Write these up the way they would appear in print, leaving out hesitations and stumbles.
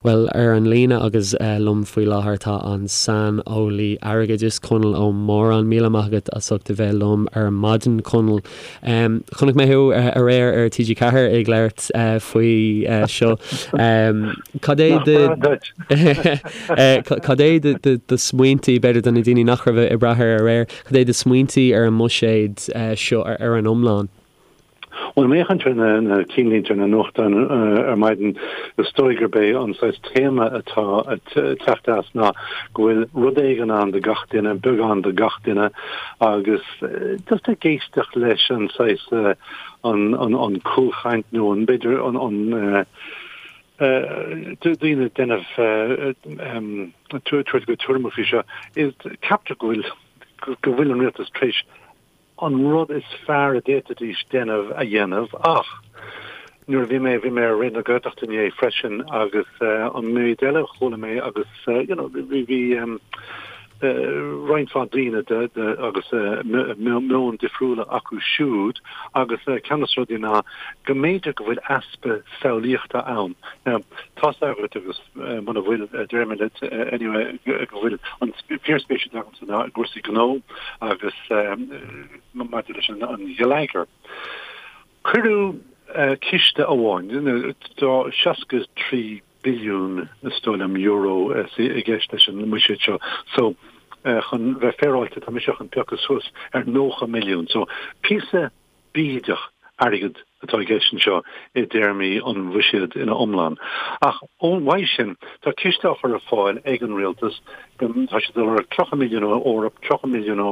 Bhuel, ar an líne agus liom faoi láthair tá an saineolaí airgeadais, Conall Ó Móráin. Míle maith agat as ucht a bheith liom ar maidin, Conall. Chonaic mé thú aréir ar TG4 ag labhairt faoi seo. Cad é do Cad é do smaointí, b'fhéidir do na daoine nach raibh ag brath air aréir, cad é do smaointí ar an mbuiséad seo ar an iomlán? Bhuel, má fhéachann tú ar na cinnlínte ar na nuachtáin ar maidin, is dóigh gurb é an saghas téama atá ag teacht as ná go bhfuil rud éigin ann do gach duine, beagán do gach duine, agus just ag éisteacht leis an saghas, an cúlchaint nó an, b'fhéidir an, daoine ag déanamh, tabhairt a gcuid tuairimí faoi seo, ceaptar go bhfuil, go bhfuil an rialtas tar éis an rud is fearr a d'fhéadfaidís déanamh a dhéanamh ach nuair a bhí mé, bhí mé ar Raidió na Gaeltachta inné freisin agus an méid eile a chuala mé agus you know bhí, bhí roinnt mhaith daoine de, de agus meon difriúla acu siúd agus ceann de na rudaí ná go mb'fhéidir go bhfuil easpa samhlaíochta ann. Now tá's agat agus muna bhfuil déarfaidh mé leat anyway go bhfuil an fíorspéis agamsa i gcúrsaí gnó agus maidir leis an gheilleagar. Cuireadh ciste amháin, tá 63 billiún, is dóigh liom, euro i gceist leis an mbuiséad seo. So, chun bheith féaráilte, tá mise chun piocadh suas ar 90 milliún. So, píosa bídeach airgid atá i gceist anseo i dtéarmaí an bhuiséid ina iomlán. Ach uaidh sin, tá ciste á chur ar fáil ag an rialtas, tá siad ag lorg 30 milliún ó Eoraip, 30 milliún ó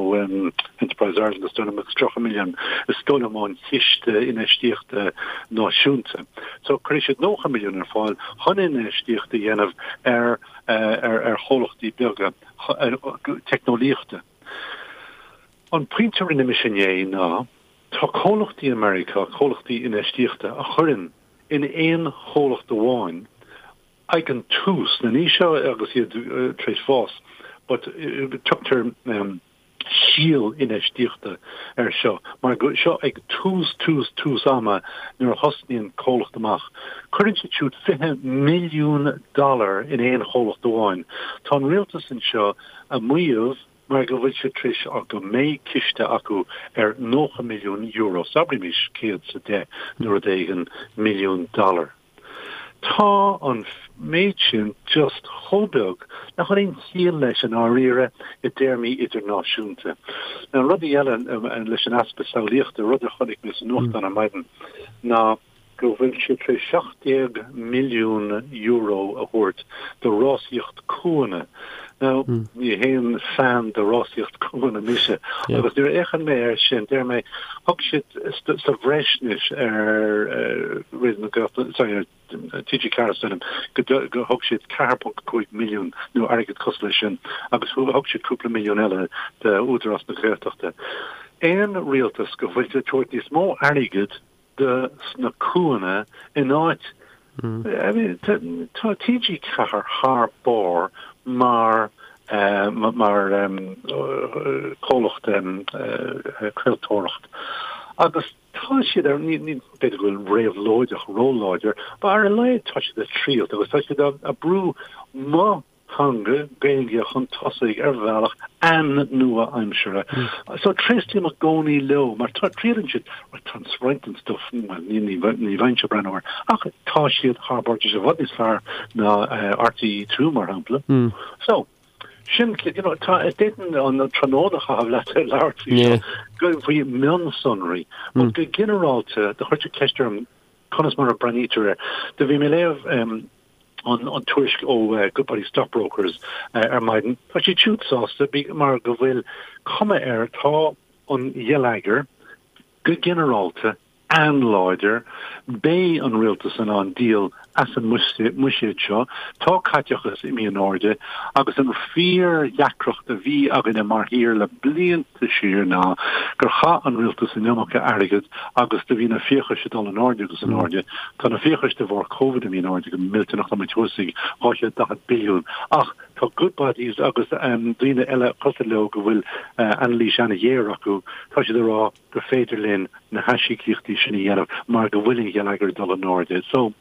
Enterprise Ireland is dóigh liom agus 30 milliún is dóigh liom ón Chiste Infheistíochta Náisiúnta. So cuirfidh siad 90 milliún ar fáil chun infheistíocht a dhéanamh ar ar chomhlachtaí beaga teicneolaíochta. An pointe a rinne mise inné ná, tá comhlachtaí i Meiriceá, comhlachtaí infheistíochta, a chuireann in aon chomhlacht amháin ag an tús, now ní seo agus iad tar éis fás, but tugtar síol infheistíochta air seo, mar go, seo ag tús, tús, tús ama nuair a thosnaíonn comhlacht amach. Cuireann siad siúd 20 milliún dollar in aon chomhlacht amháin. Tá an rialtas anseo ag maíomh, mar go bhfuil siad tar éis go mbeidh ciste acu ar €90 milliún, so abraimis 110 nó rud éigin milliún dollar. Tá an méid sin just chomh beag nach bhfuil aon chiall leis i ndáiríre i dtéarmaí idirnáisiúnta. Now rudaí eile leis an easpa samhlaíochta, rud a chonaic mé sa nuachtán ar maidin ná, go bhfuil siad tar éis €17 milliún a thabhairt do rásaíocht cuanna. Now, ní haon fan de rásaíocht cuanna mise, agus nuair a fhéachann mé air sin, deir mé, thug siad sa bhreis anois ar Raidió na Gaeltachta, sorry, ar TG4 is dóigh liom, go thug siad 4.5 milliún nó airgead cosúil leis sin, agus thug siad cúpla milliún eile d'Údarás na Gaeltachta. Aon rialtas go bhfuil siad ag tabhairt níos mó airgid do sna cuanna in áit I mean tá TG4 thar barr mar mar comhlacht craoltóireacht agus tá siad ar ní ní b'fhéidir go bhfuil réabhlóideach róláidir but ar a laghad tá siad ag triailt agus tá siad ag brú mo theanga, Gaeilge, chun tosaigh ar bhealach an-nua-aimseartha. So tréaslaím i gcónaí leo mar triaileann siad, right, tá roinnt den stuff, bhuel, ní, ní, ní bheinnse ag breathnú air, ach tá siad thar barr, tá siad i bhfad níos fearr ná RTÉ 2 mar shampla. So, sin, you know, tá, d'fhéadfainn an tráthnóna a chaitheamh leat ag labhairt faoi seo, go, faoi mhionsonraí, but go ginearálta, do chuir tú ceist orm conas mar a breathnaítear air. Do bhí mé ag léamh, an tuairisc ó Goodbody Stockbrokers ar maidin. Tá siad siúd sásta mar go bhfuil cuma air, tá an gheilleagar go ginearálta an-láidir, beidh an rialtas in ann díol as an mbuiséad seo, tá caiteachas imithe in airde agus an fíor-dheacracht a bhí againne mar thír le blianta, siar ná gur chaith an rialtas an iomarca airgid agus do bhí na fiachais ag dul in airde agus in airde. Tá na fiachais de bharr Covid imithe in airde go millteanach, tá muid thuas ag 240 billiún. Ach tá Goodbodys agus daoine eile cosúil leo go bhfuil anailís an-ghéar acu, tá siad ag rá gur féidir linn na haisíocaíochtaí sin a dhéanamh mar go bhfuil an gheilleagar ag dul in airde. So,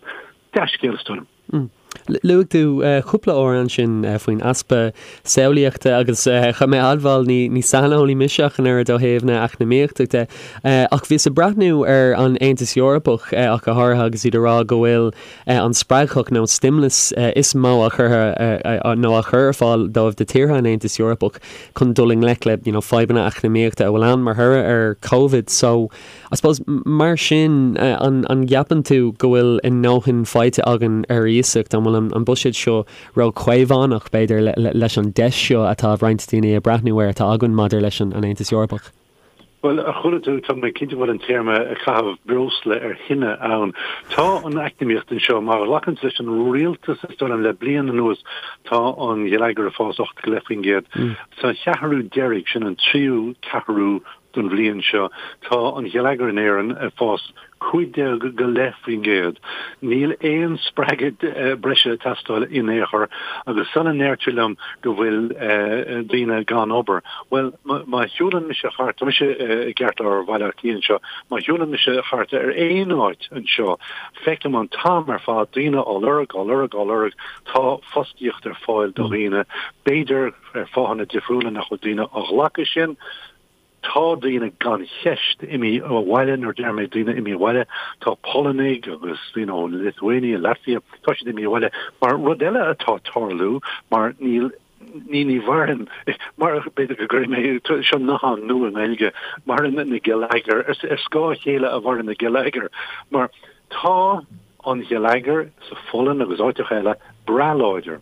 dea-scéal is dóigh liom. Luaigh tú cúpla uair ansin faoin easpa samhlaíochta agus chaithfidh mé a admháil, ní saineolaí mise ach an oiread ó thaobh na eacnamaíochta de, ach bhíos ag breathnú ar an Aontas Eorpach ach go háirithe agus iad ag rá go bhfuil an spreagthach nó an stimulus is mó á chur nó á chur ar fáil dóibh do tíortha an Aontais Eorpach chun dul i ngleic le you know fadhbanna eacnamaíochta a bhfuil ann mar thoradh ar Covid. So I suppose, mar sin, an gceapann tú go bhfuil a ndóthain faighte againn ar iasacht? An bhfuil an buiséad seo ró-chaomhánach, b'fhéidir, leis an deis seo atá roinnt daoine ag breathnú air atá againn maidir leis an Aontas Eorpach? Bhuel, a chuala tú, tá mé cinnte go bhfuil an téarma caitheamh breosla ar thine ann. Tá an eacnamaíocht anseo, má ghlacann tú leis an rialtas, is dóigh liom, le bliain anuas, tá an geilleagar ag fás 8.5%. Sa cheathrú deiridh, sin an tríú ceathrú don bhliain seo. Tá an geilleagar in Éirinn ag fás 15.5%. Níl aon spreagadh breise ag teastáil in aon chor agus sula ndeirtear liom go bhfuil daoine gan obair, bhuel, má shiúlann mise thart, tá mise i gceartlár Bhaile Átha Cliath anseo, má shiúlann mise thart ar aon áit anseo, feicim an t-am ar fad daoine á lorg, á lorg, á lorg. Tá fostaíocht ar fáil do dhaoine. B'fhéidir ar fáthanna difriúla nach bhfuil daoine á ghlacadh sin. Tá daoine gan cheist imithe abhaile, nuair a deir mé daoine imithe abhaile, tá Polannaigh agus daoine ó Lithuania, Latvia, tá siad imithe abhaile. Mar rud eile atá ag tarlú, mar níl, ní, ní mhaireann, mar b'fhéidir go gcuirfidh mé, seo nathán nua i nGaeilge, maireann na geilleagair, ar scáth a chéile a mhaireann na geilleagair, mar tá an geilleagar sa Pholainn agus áiteacha eile breá láidir.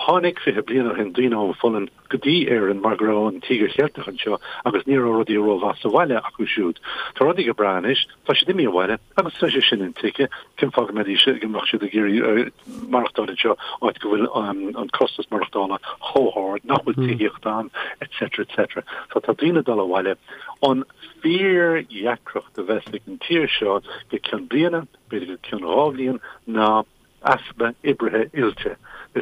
Tháinig 20 bliain ó shin daoine ón Pholainn, go dtí Éirinn mar go raibh an Tíogar Cheilteach anseo agus ní raibh rudaí rómhaith sa bhaile acu siúd. Tá rudaí go breá anois, tá siad imithe abhaile agus tá sé sin intuigthe, cén fáth go mbeidís, go mbeadh siad ag iarraidh maireachtáil anseo, áit go bhfuil an costas maireachtála chomh hard, nach bhfuil tithíocht ann, etc. etc. So tá daoine ag dul abhaile. An fíordheacracht a bheas ag an tír seo go ceann bliana, b'fhéidir go ceann dhá bhliain, ná easpa oibrithe oilte. Tá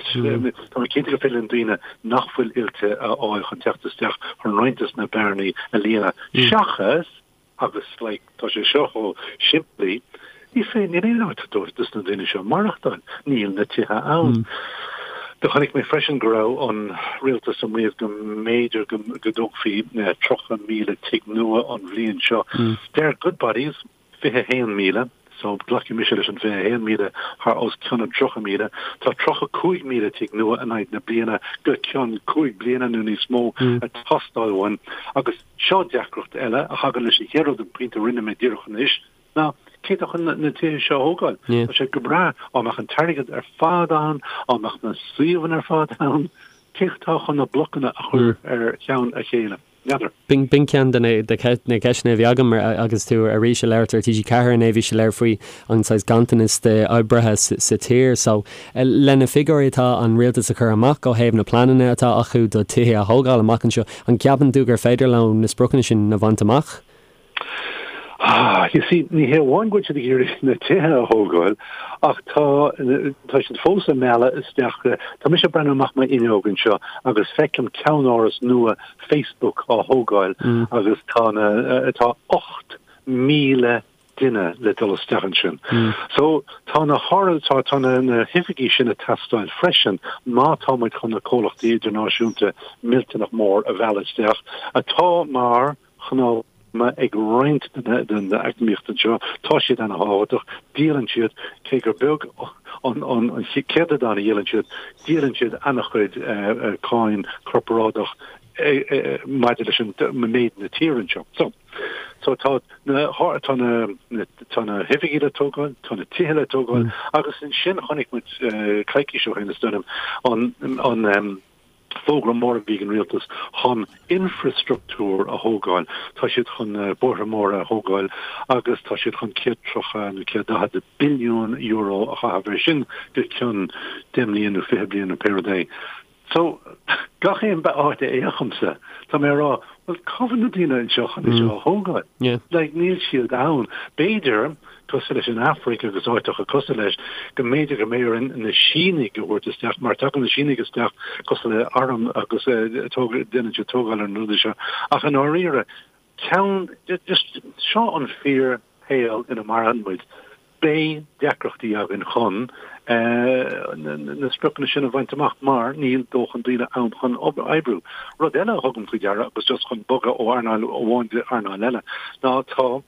mé cinnte gur féidir linn daoine nach bhfuil oilte a fháil chun teacht isteach chun roinnt des na bearnaí a líonadh. Seachas, agus like tá sé seo chomh simplí, ní féidir, níl aon áit dóibh dos na daoine seo maireachtáil. Níl na tithe ann. Do chonaic mé freisin go raibh an rialtas ag maíomh go mb'fhéidir go dtógfaí 30,000 tigh nua an bhliain seo. Deir Goodbodys, 21,000, so glacfaidh mise leis an 21,000 thar os cionn an 30,000. Tá 35,000 tigh nua in aghaidh na bliana go ceann cúig bliana nó níos mó ag teastáil uainn. Agus seo deacracht eile a thagann leis an chéad rud, an pointe a rinne mé díreach anois, ná cé atá chun na tithe seo a thógáil? Tá sé go breá dá mbeadh an t-airgead ar fad ann, dá mbeadh na suíomhanna ar fad ann, cé atá chun na blocanna a chur ar cheann a chéile? N'fheadar. B'in ceann de na ceisteanna a bhí agam agus tú arís ag labhairt ar TG4 inné, bhí sé léir faoi an saghas ganntanas d'oibrithe sa tír. So, le na figiúirí atá an rialtas a chur amach ó thaobh na pleananna atá acu do tithe a thógáil amach anseo, an gceapann tú gur féidir leo na spriocanna sin a bhaint amach? Ah, you see, ní hé amháin go bhfuil siad ag iarraidh na tithe a thógáil, ach tá, tá siad fós ag mealladh isteach, tá mise ag breathnú amach m'fhuinneog anseo agus feicim ceannáras nua Facebook á thógáil agus tá na, tá 8,000 duine le dul isteach ansin. So, tá na háras, tá, tá na, na hoifigí sin ag teastáil freisin má tá muid chun na comhlachtaí idirnáisiúnta millteanach mór a mhealladh isteach atá mar chnámha ag roinnt den eacnamaíocht anseo. Tá siad ana-thábhachtach. Díolann siad, cé gur beag an céatadán a dhíolann siad, díolann siad ana-chuid cáin corparáideach maidir leis an méid na tíre anseo. So, so tá na, tá na, tá na hoifigí le tógáil, tá na tithe le tógáil agus ansin chonaic muid coicís ó shin is dóigh liom an, an, Fógra mór a bhí ag an rialtas chun infreastruchtúr a thógáil. Tá siad chun bóithre móra a thógáil agus tá siad chun 130 nó 140 billiún euro a chaitheamh ar sin go ceann 10 mbliain nó 20 bliain nó pé rud é. So, gach aon áit a fhéachaimse, tá mé ag rá, bhuel, cá bhfuil na daoine anseo chun é seo a thógáil? Like, níl siad ann. B'fhéidir cosúil leis an Afraic agus áiteacha cosúil leis, go mb'fhéidir go mbeidh orainn na Sínigh a thabhairt isteach, mar tagann na Sínigh isteach cosúil le arm agus déanann siad tógáil ar na rudaí seo. Ach i ndáiríre, ceann, just, seo an fíor shaol ina maireann muid. Beidh deacrachtaí againn chun na spriocanna sin a bhaint amach mar níl dóthain daoine ann chun oibriú. Rud eile a thugaim faoi deara, agus just chun bogadh ó earnáil amháin go earnáil eile, ná tá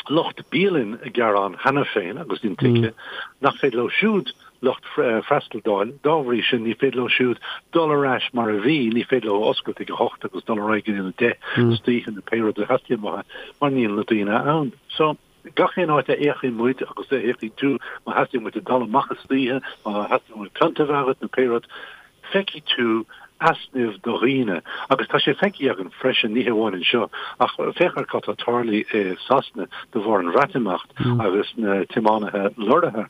lucht bialann ag gearán cheana féin, agus intuigthe, nach féidir leo siúd lucht freastail d'fháil. Dá bhrí sin, ní féidir leo siúd dul ar ais mar a bhí, ní féidir leo oscailt ag a hocht agus dul ar aghaidh go dtí a deich istoíche nó pé rud a theastaíonn uathu, mar níl na daoine ann. So. Gach aon áit a fhéachfaidh muid agus a fhéachfaidh tú, má theastaíonn uait dul amach istoíche, má theastaíonn uait pionta a bheith agat nó pé rud, feicfidh tú easnamh do dhaoine. Agus tá sé feicthe againn freisin, ní hamháin anseo, ach féach ar cad tá tarlaithe i Sasana de bharr an Bhreatimeacht agus na tiománaithe lorraithe.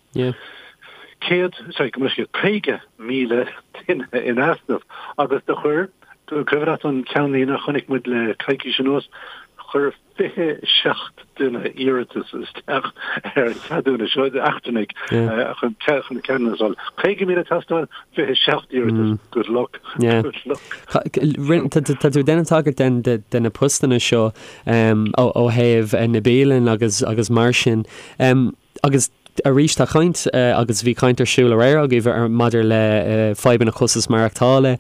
100, sorry, go mbeidh 50,000 duine in easnamh agus do chuir, cuimhin leat an ceannlíne a chonaic muid le coicís anuas, chuir 27 duine iarratas isteach ar an cheadúnas seo, eachtrannaigh chun ceadúnas a fháil. 50,000 ag teastáil, 27 iarratas. Good luck. Good luck. Tá tú ag déanamh tagairt de na postanna seo ó thaobh na bialann agus mar sin. Agus arís tá caint, agus bhí caint ar siúl aréir agaibh maidir le fadhbanna costas maireachtála.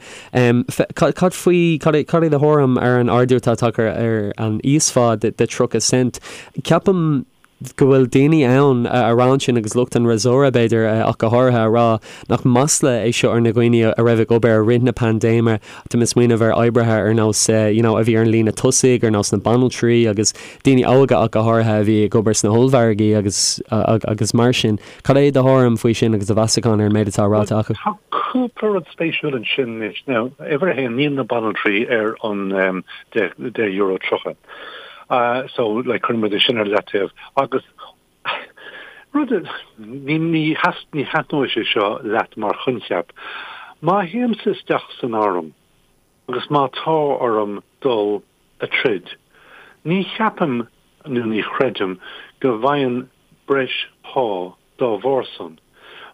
Cad faoi, cad é do thuairim ar an ardú atá tagtha ar an íosphá de 30 cent? Ceapaim go bhfuil daoine ann a rá ansin, agus lucht an fhreasúra b'fhéidir ach go háirithe, a rá nach masla é seo ar na dhaoine a raibh ag obair i rith na paindéime. Tá mé ag smaoineamh ar oibrithe ar nós you know a bhí ar an líne tosaigh, ar nós na banaltraí agus daoine óga ach go háirithe a bhí ag obair sna hollmhargaí agus agus mar sin. Cad é do thuairim faoi sin agus do mheasachán ar an méid atá ráite acu? Tá cúpla rud spéisiúil ansin anois. Now, uimhir a haon, níl na banaltraí ar an €10.30. So, like, cuireann muid é sin ar leataobh. Agus rud, ní, ní thaitneoidh sé seo leat mar choincheap. Má théimse isteach san arm agus má tá orm dul a troid. Ní cheapaim nó ní chreidim go bhfaighinn breis pá dá bharr san.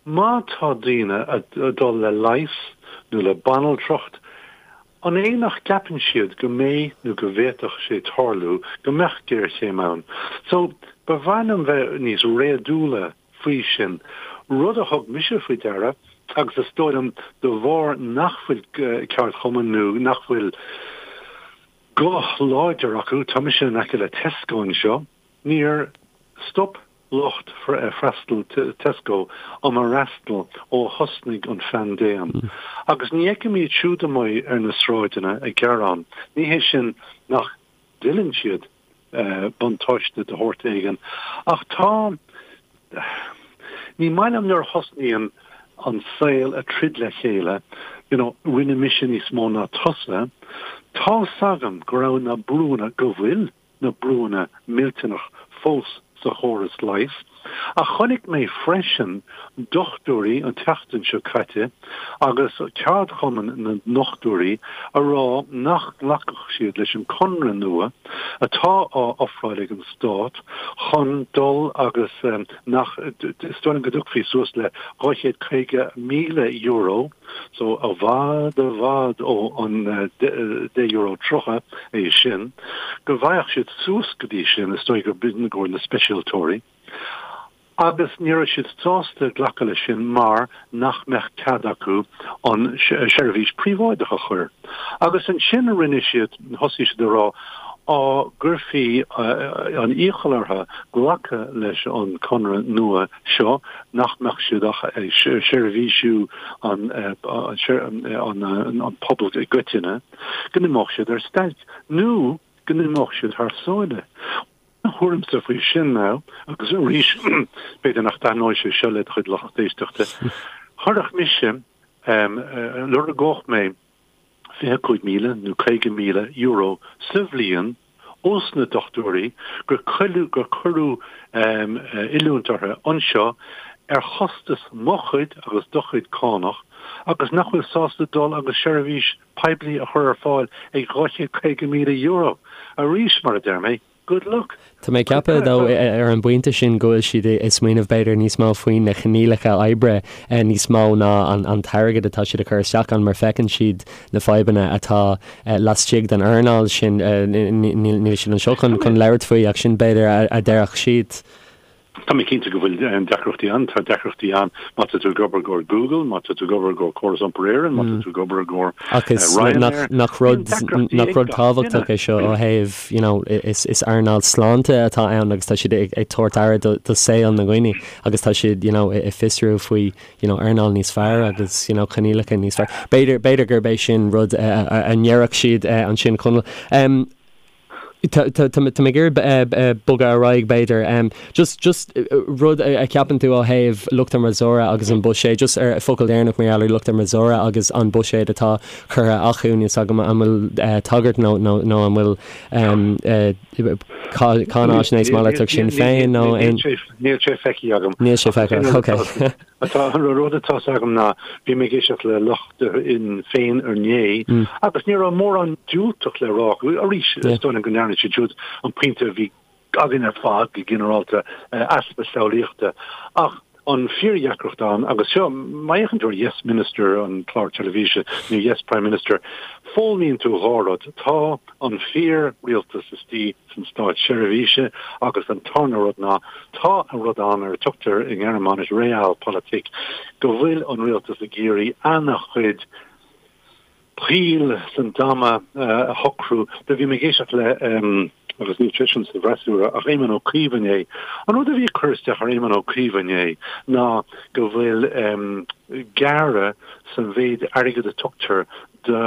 Má tá daoine a dul le leigheas nó le banaltracht, an é nach gceapann siad go mbeidh nó go bhféadfadh sé tarlú go mbeadh géarchéim ann? So, ba mhaith liom bheith níos réadúla faoi sin. Rud a thug mise faoi deara, agus is dóigh liom de bharr nach bhfuil ceardchumann nó nach bhfuil guth láidir acu, tá mise in aice le Tesco anseo, níor stop lucht freastail Tesco um fhreastal ó thosnaigh an phaindéim. Agus ní fheicim iad siúd amuigh ar na sráideanna ag gearán. Ní hé sin nach dtuilleann siad buntáiste de shórt éigin. Ach tá, ní maith liom nuair a thosnaíonn an saol a troid le chéile, you know, rinne mise níos mó ná tusa. Tá's agam go raibh na brúnna, go bhfuil na brúnna millteanach fós sa chóras leighis. Ach chonaic mé freisin dochtúirí an tseachtain seo caite agus ceardchumann na ndochtúirí a rá nach nglacfadh siad leis an conradh nua atá á ofráil ag an stát chun dul agus nach, is dóigh liom go dtiocfaí suas le €250,000, so i bhfad i bhfad ó an €10.30 é sin, go bhfaigheadh siad suas go dtí sin, is dóigh gur b'in i gcomhair na speisialtóirí. Agus ní raibh siad sásta glacadh leis sin mar nach mbeadh cead acu an seirbhís príobháideach a chur. Agus ansin rinne siad, thosaigh siad a rá, á gcuirfí an iachall orthu glacadh leis an conradh nua seo, nach mbeadh siad ach ag seirbhísiú an an pobal i gcoitinne, go n-imeodh siad ar stailc nó go n-imeodh siad thar sáile. Mo thuairimse faoi sin ná, agus arís, b'fhéidir nach dtaitneoidh sé seo le do chuid lucht éisteachta, chuirfeadh mise, lorgódh mé €25,000 nó €50,000 sa bhliain ós na dochtúirí gur cuireadh gur cuireadh oiliúint orthu anseo ar chostas mo chuid agus do chuid cánach agus nach bhfuil sásta dul agus seirbhís poiblí a chur ar fáil ag €250,000. Arís, mar a deir mé, good luck. Tá mé ag ceapadh, though, ar an bpointe sin go bhfuil siad ag smaoineamh b'fhéidir níos mó faoi na coinníollacha oibre níos mó ná an t-airgead atá siad a chur isteach ann mar feiceann siad na fadhbanna atá laistigh den earnáil sin. Níl siad anseo chun labhairt faoi ach sin b'fhéidir a déarfadh siad. Tá mé cinnte go bhfuil deacrachtaí ann. Tá deacrachtaí ann má tá tú ag obair i gcomhair Google, má tá tú ag obair i gcomhair Córas Iompair Éireann, má tá tú ag obair i gcomhair Ach is Ryanair. Nach rud, nach rud tábhachtach é seo ó thaobh, you know, is is earnáil sláinte atá ann agus tá siad ag ag tabhairt aire do do saol na ndaoine agus tá siad, you know, ag fiosrú faoi, you know, earnáil níos fearr agus, you know, coinníollacha níos fearr. B'fhéidir, b'fhéidir gurb é sin rud a ndéarfadh siad ansin, Conall. Tá mé ag iarraidh bogadh ar aghaidh, b'fhéidir. Just, just rud a cheapann tú ó thaobh lucht an fhreasúra agus an buiséad, just ar focal deireanach mar gheall ar lucht an fhreasúra agus an buiséad atá curtha acu, níl 's agam an bhfuil tagairt nó, nó, nó an bhfuil cáinaisnéis malartach Sinn Féin nó aon. Níl sé feicthe agam. Níl sé feicthe, ok. Atá, an rud atá 's agam ná, bhí mé ag éisteacht le lucht Shinn Féin inné agus ní raibh mórán diúltach le rá acu. Arís, is dóigh liom go ndearna siad siúd an pointe a bhí againn ar fad go ginearálta, easpa samhlaíochta. Ach an fíordheacracht ann, agus seo, má fhéachann tú ar Yes Minister, an clár teilifíse, nó Yes Prime Minister, foghlaimíonn tú dhá rud, tá an fíor-rialtas istigh san státseirbhíse agus an tarna rud ná tá an rud ann ar a tugtar i nGearmáinis Realpolitik, go bhfuil an rialtas ag iarraidh ana-chuid poill san dama a shocrú. Do bhí mé ag éisteacht le, agus níl seisean sa bhfreasúra, ach Éamon Ó Cuív inné. An rud a bhí ag cur isteach ar Éamon Ó Cuív inné ná go bhfuil gearradh san mhéid airgead a tugtar do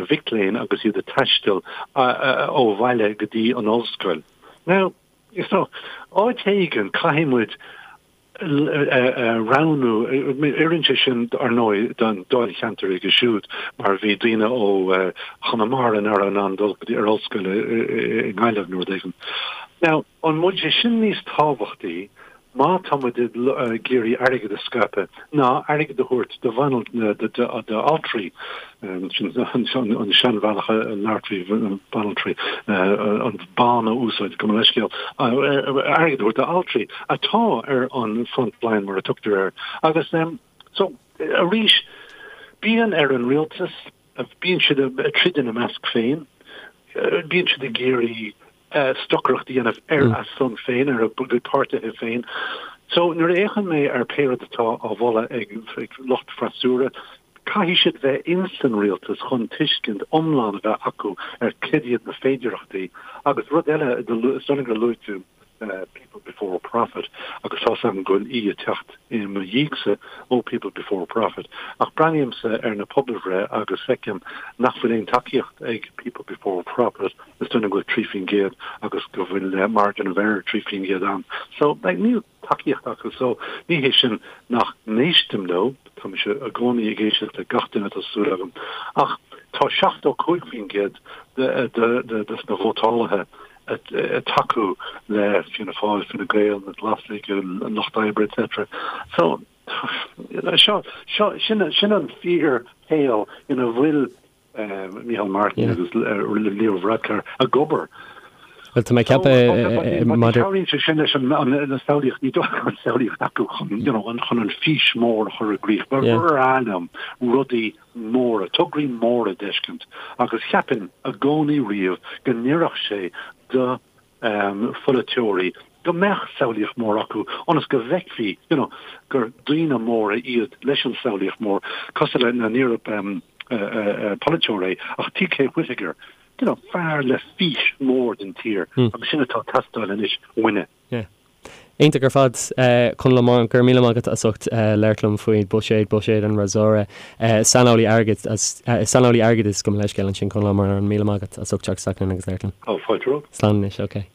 mhic léinn agus iad ag taisteal ó bhaile go dtí an ollscoil. Now, you know, áit éigin caithfidh muid roghnú, oireann sé sin ar ndóigh don dáilcheantar aige siúd mar bhí daoine ó Chonamara nach raibh in ann dul go dtí ar ollscoil i nGaillimh nó rud éigin. Now, an bhfuil sé sin níos tábhachtaí má tá muid ag iarraidh airgead a scaipeadh, ná airgead a thabhairt do d'altraí, sin an seanbhealach a labhairt faoi banaltraí, an ban a úsáid, gabh mo leithscéal, airgead a thabhairt d'altraí atá ar an front line mar a tugtar air. Agus so, arís, bíonn ar an rialtas, bíonn siad ag troid ina measc féin, bíonn siad ag iarraidh stocaireacht a dhéanamh ar a son féin, ar a gcuid páirtithe féin. So, nuair a fhéachann mé ar pé rud atá á mholadh ag lucht freasúra, caithfidh siad bheith ins an rialtas chun tuiscint iomlán a bheith acu ar cad iad na féidearthachtaí. Agus rud eile, is dóigh liom gur luaigh tú People Before Profit, agus tá's agam go bhfuil aoi ag teacht i mo dhiaidhse ó People Before Profit, ach breathnaímse ar na pobalbhreith agus feicim nach bhfuil aon tacaíocht ag People Before Profit. Is dóigh liom go bhfuil 3% agus go bhfuil margin of error 3% ann. So, like, níl tacaíocht acu. So, ní hé sin nach n-éistim leo, tá mise i gcónaí ag éisteacht le gach duine tá súil agam, ach tá 75% de, de, de, de na vótálaithe ag tacú le Fianna Fáil, Fine Gael, na Glasaigh, an Lucht Oibre, etc. So, seo, seo, sin, sin an fíorshaol ina bhfuil Micheál Martin agus Leo Varadkar ag obair. Bhuel, tá mé ag ceapadh maidir. Cabhraíonn sé sin leis an samhlaíocht, ní dóigh an samhlaíocht acu chun you know chun an fís mór a chur i gcrích. Ba bhreá liom rudaí móra, tograí móra a d'fheiscint agus cheapfainn i gcónaí riamh go n-oirfeadh sé do pholaiteoirí go mbeadh samhlaíocht mhór acu ionas go bhfeicfí you know gur daoine móra iad leis an samhlaíocht mhór, cosúil le, níorbh polaiteoir é ach TK Whitaker, you know fear le fís mhór don tír agus sin atá ag teastáil anois uainne. Yeah. Iontach ar fad, Conall Ó Móráin, go raibh míle maith agat as ucht labhairt liom faoi buiséad, buiséad an fhreasúra. Saineolaí airgid, saineolaí airgeadais gabh mo leithscéal ansin, Conall Ó Móráin, míle maith agat as ucht teacht isteach linn agus labhairt linn. Ó, fáilte romhat. Slán anois, ok.